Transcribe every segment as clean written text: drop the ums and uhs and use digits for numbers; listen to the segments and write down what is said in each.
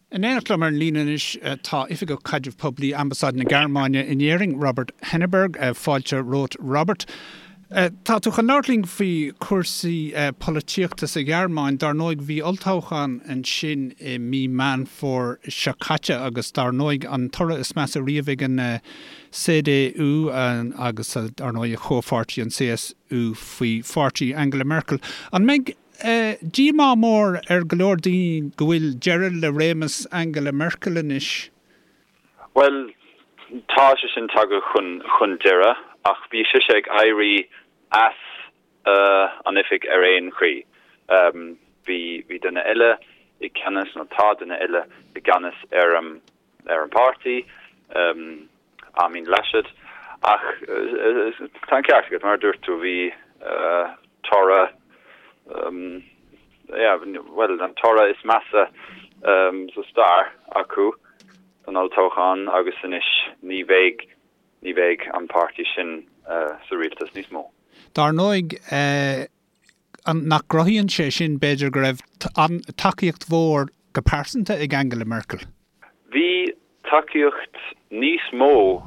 In éineacht liom ar an líne anois tá Oifigeach Caidrimh Poiblí Ambasáid na Gearmáine in Éirinn, Robert Henneberg. Fáilte romhat, Robert. Tá tú chun labhairt linn faoi chúrsaí polaitíochta sa Ghearmáin. Dar ndóigh, bhí olltoghchán ansin i mí Meán Fómhair seo caite agus dar ndóigh an toradh is measa riamh ag an CDU agus dar ndóigh a chomhpháirtí an CSU faoi pháirtí Angela Merkel. An mbeidh díomá mór ar go leor daoine go bhfuil deireadh le réimeas Angela Merkel anois? Bhuel, tá sé sin tagtha chun chun deireadh ach bhí sise ag éirí as an oifig ar aon chaoi. Bhí bhí duine eile i gceannas, nó tá duine eile i gceannas ar an ar an bpáirtí, Armin Laschet. Ach tá an ceart agat, mar a dúirt tú, bhí toradh, yeah, bhuel, an toradh is measa sa stair acu san olltoghchán agus anois ní bheidh, ní bheidh an páirtí sin sa rialtas níos mó. Dar ndóigh, nach gcruthaíonn sé sin, b'fhéidir, go raibh tacaíocht mhór go pearsanta ag Angela Merkel? Bhí tacaíocht níos mó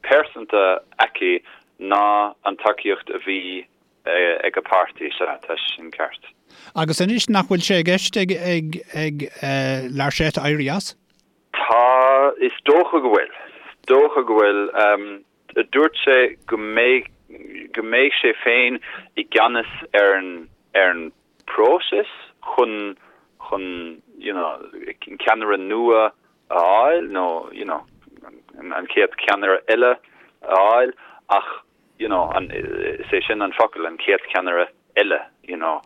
pearsanta aici ná an tacaíocht a bhí ag a páirtí, sea, tá sin ceart. Agus anois, nach bhfuil sé i gceist ag ag Laschet éirí as? Tá, is dócha go bhfuil. Is dócha go bhfuil. Dúirt sé go mbeidh go mbeidh sé féin i gceannas ar an ar an bpróiseas chun chun you know ceannaire nua a fháil nó you know an chéad cheannaire eile a fháil ach you know an is é sin an focal an chéad cheannaire eile, you know.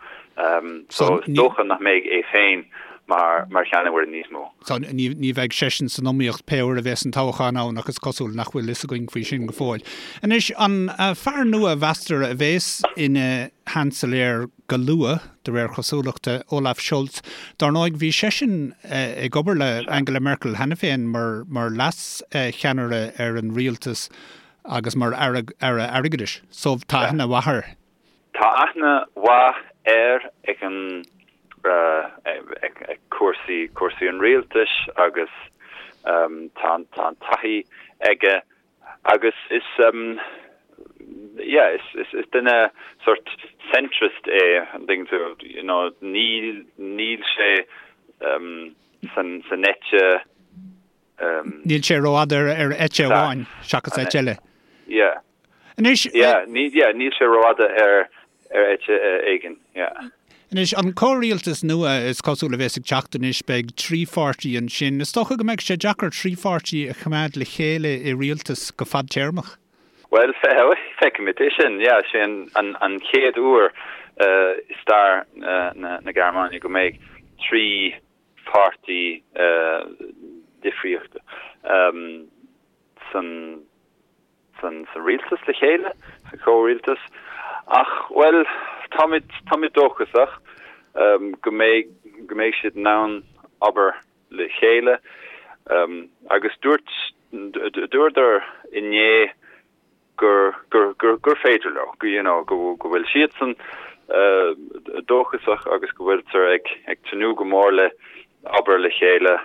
So is dócha nach mbeidh é féin mar mar cheannaire níos mó. So ní ní bheidh seisean san iomaíocht pé uair a bheas an toghchán ann ach is cosúil nach bhfuil fhios againn faoi sin go fóill. Anois, an fear nua a mheastar a bheas ina Sheansailéir go luath, de réir chosúlachta, Olaf Scholz, dar ndóigh bhí seisean ag obair le Angela Merkel cheana féin mar mar leas-cheannaire ar an rialtas agus mar Aire Airgeadais. So tá aithne mhaith air. Tá aithne mhaith air ag an ag cúrsaí cúrsaí an rialtais agus tá tá an taithí aige agus is yeah is is is duine sort centrist é an dtuigeann tú you know níl níl sé san san eite Níl sé rófhada ar ar eite amháin seachas eite eile. Yeah. Anois. Yeah, ní, yeah, níl sé rófhada ar, ar eite éigin, yeah. Anois, an comhrialtas nua is cosúil a bheas ag teacht anois, beidh trí pháirtí ansin. Is dócha go mbeidh sé deacair trí pháirtí a choimeád le chéile i rialtas go fadtéarmach. Bhuel, feicfimid é sin, yeah. Sé an, an, an chéad uair i stair na, na Gearmáine go mbeidh trí pháirtí difríochta san, san rialtas le chéile, sa chomhrialtas. Ach, bhuel, táimid, táimid dóchasach go mbeidh, go mbeidh siad in ann obair le chéile. Agus dúirt, dúradar inné gur, gur, gur, gur féidir leo, go, you know, go, go bhfuil siadsan dóchasach agus go bhfuiltear ag, ag tnúth go mór le obair le chéile.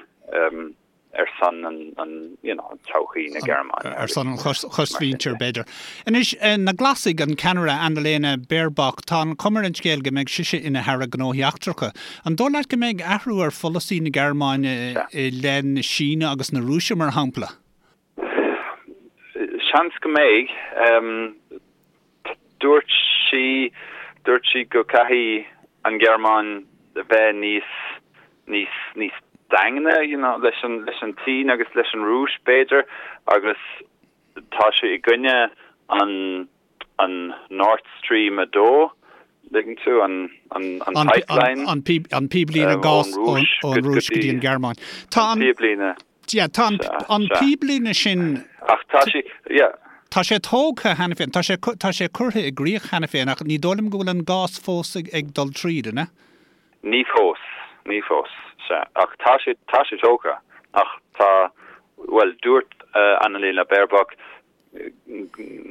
ar son an, you know, todhchaí na Gearmáine. Ar son an chosmhuintir, b'fhéidir. Anois, na Glasaigh, an ceannaire Annalena Baerbock, tá an chuma ar an scéal go mbeidh sise ina hAire Gnóthaí Eachtracha. An dóigh leat go mbeidh athrú ar pholasaí na Gearmáine i leith na Síne agus na Rúise, mar shampla? Seans go mbeidh. Dúirt sí, dúirt sí go caithfidh an Ghearmáin a bheith níos, níos, níos daingne, you know, leis an, leis an tSín agus leis an Rúis, b'fhéidir, agus tá sí i gcoinne an, an Nord Stream 2, dtuigeann tú, an, an, an pipeline. An, an píblíne gáis ón, ón Rúis go dtí an Ghearmáin. Tá an. Píblíne. Yeah, tá an, an píblíne sin. Ach tá sí, yeah. Tá sé tógtha cheana féin, tá sé, tá sé curtha i gcrích cheana féin ach ní dóigh liom go bhfuil an gás fós ag, ag dul tríd, an ea? Ní fós, ní fós, sea. Ach tá sé, tá sé tógtha. Ach tá, bhuel, dúirt Annalena Baerbock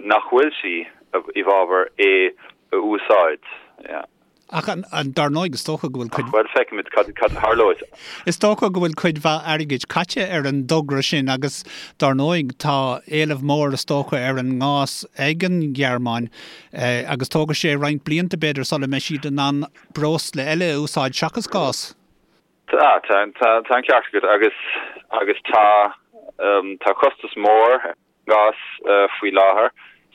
nach bhfuil sí i bhfabhar é a úsáid, yeah. Ach dar ndóigh, is dócha go bhfuil cuid. Ach, bhuel, feicfimid cad a tharlóidh. Is dócha go bhfuil cuid mhaith airgid caite ar an dtogra sin agus dar ndóigh tá éileamh mór is dócha ar an ngás ag an Ghearmáin agus tógfaidh sé roinnt blianta b'fhéidir sula mbeidh siad in ann breosla eile a úsáid seachas gás. Tá, tá, tá an ceart agat agus agus tá tá costas mór ar an ngás faoi láthair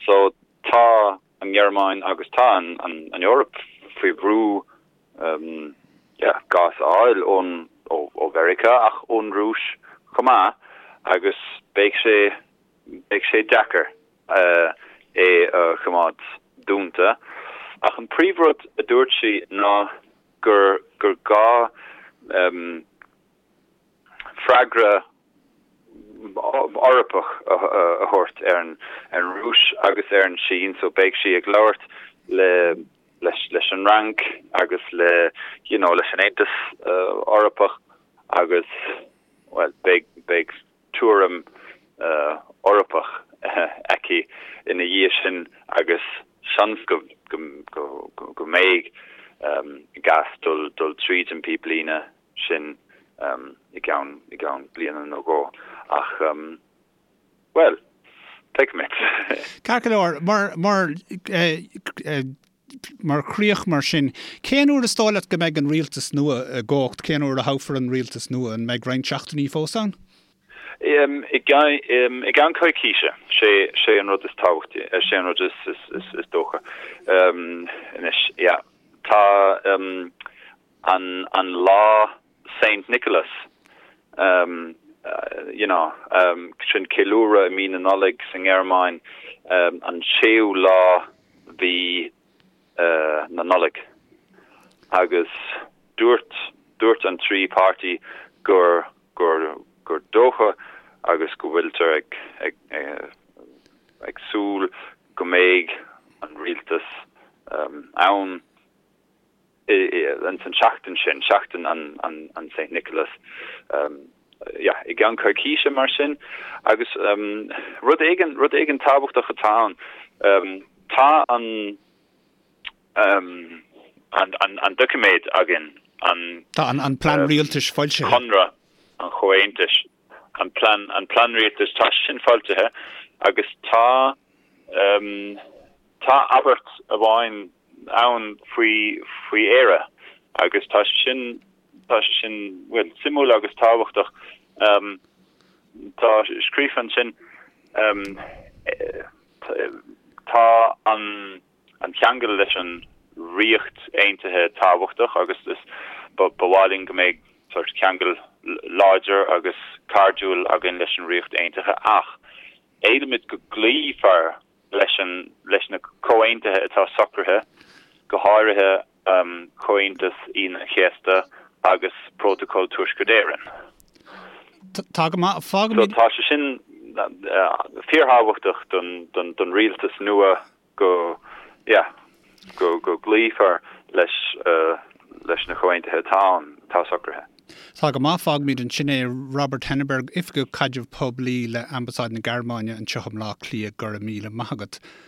so tá an Ghearmáin agus tá an an Eoraip faoi bhrú yeah gás a fháil ón ó ó Mheiriceá ach ón Rúis chomh maith agus beidh sé beidh sé deacair é a choimeád dúnta. Ach an príomhrud a dúirt sí ná gur gur gá freagra Eorpach a thabhairt ar an Rúis agus ar an Sín so beidh sí ag labhairt le leis leis an Fhrainc agus le you know leis an Aontas Eorpach agus bhuel beidh beidh tuairim Eorpach aici ina dhiaidh sin agus seans go go mbeidh gás dul dul tríd an píblíne sin i gceann i gceann bliana nó dhó ach bhuel, feicfimid. Ceart go leor, mar mar mar chríoch mar sin, cén uair is dóigh leat go mbeidh an rialtas nua i gcumhacht? Cén uair a thoghfar an rialtas nua? An mbeidh roinnt seachtainí fós ann? I gceann coicíse, sé sé an rud is tábhachtaí, sé an rud is is is dócha anois, yeah. Tá an an lá Saint Nicholas you know sin ceiliúradh i mí na Nollag sa nGearmáin an séú lá mhí na Nollag agus dúirt dúirt an 3 páirtí gur gur gur dócha agus go bhfuiltear ag ag ag súil go mbeidh an rialtas ann ins an tseachtain sin, seachtain an Saint Nicholas, yeah, i gceann coicíse mar sin. Agus rud éigin, rud éigin tábhachtach atá ann, tá an, an, an doiciméad againn, an. Tá an plean rialtais foilsithe. Conradh an Chomhaontais, an plean, an plean rialtais, tá sin foilsithe agus tá, Tá abairt amháin ann faoi faoi Éire agus tá sé sin tá sé sin bhuel suimiúil agus tábhachtach. Tá scríofa ansin tá an an ceangal leis an Ríocht Aontaithe tábhachtach agus is ba ba mhaith linn go mbeidh sórt ceangal láidir agus cairdiúil againn leis an Ríocht Aontaithe ach éilímid go gcloífear leis an leis na comhaontuithe atá socraithe, go háirithe Comhaontas Aoine an Chéasta agus Prótacal Tuaisceart Éireann. Tá go maith. Fágfaimid. So tá sé sin fíorthábhachtach don don don rialtas nua go yeah go go gcloífear leis leis na comhaontuithe atá ann, atá socraithe. Tá go maith, fágfaimid ansin é. Robert Henneberg, Oifigeach Caidreamh Poiblí le Ambasáid na Gearmáine anseo i mBleá Cliath, go raibh míle maith agat.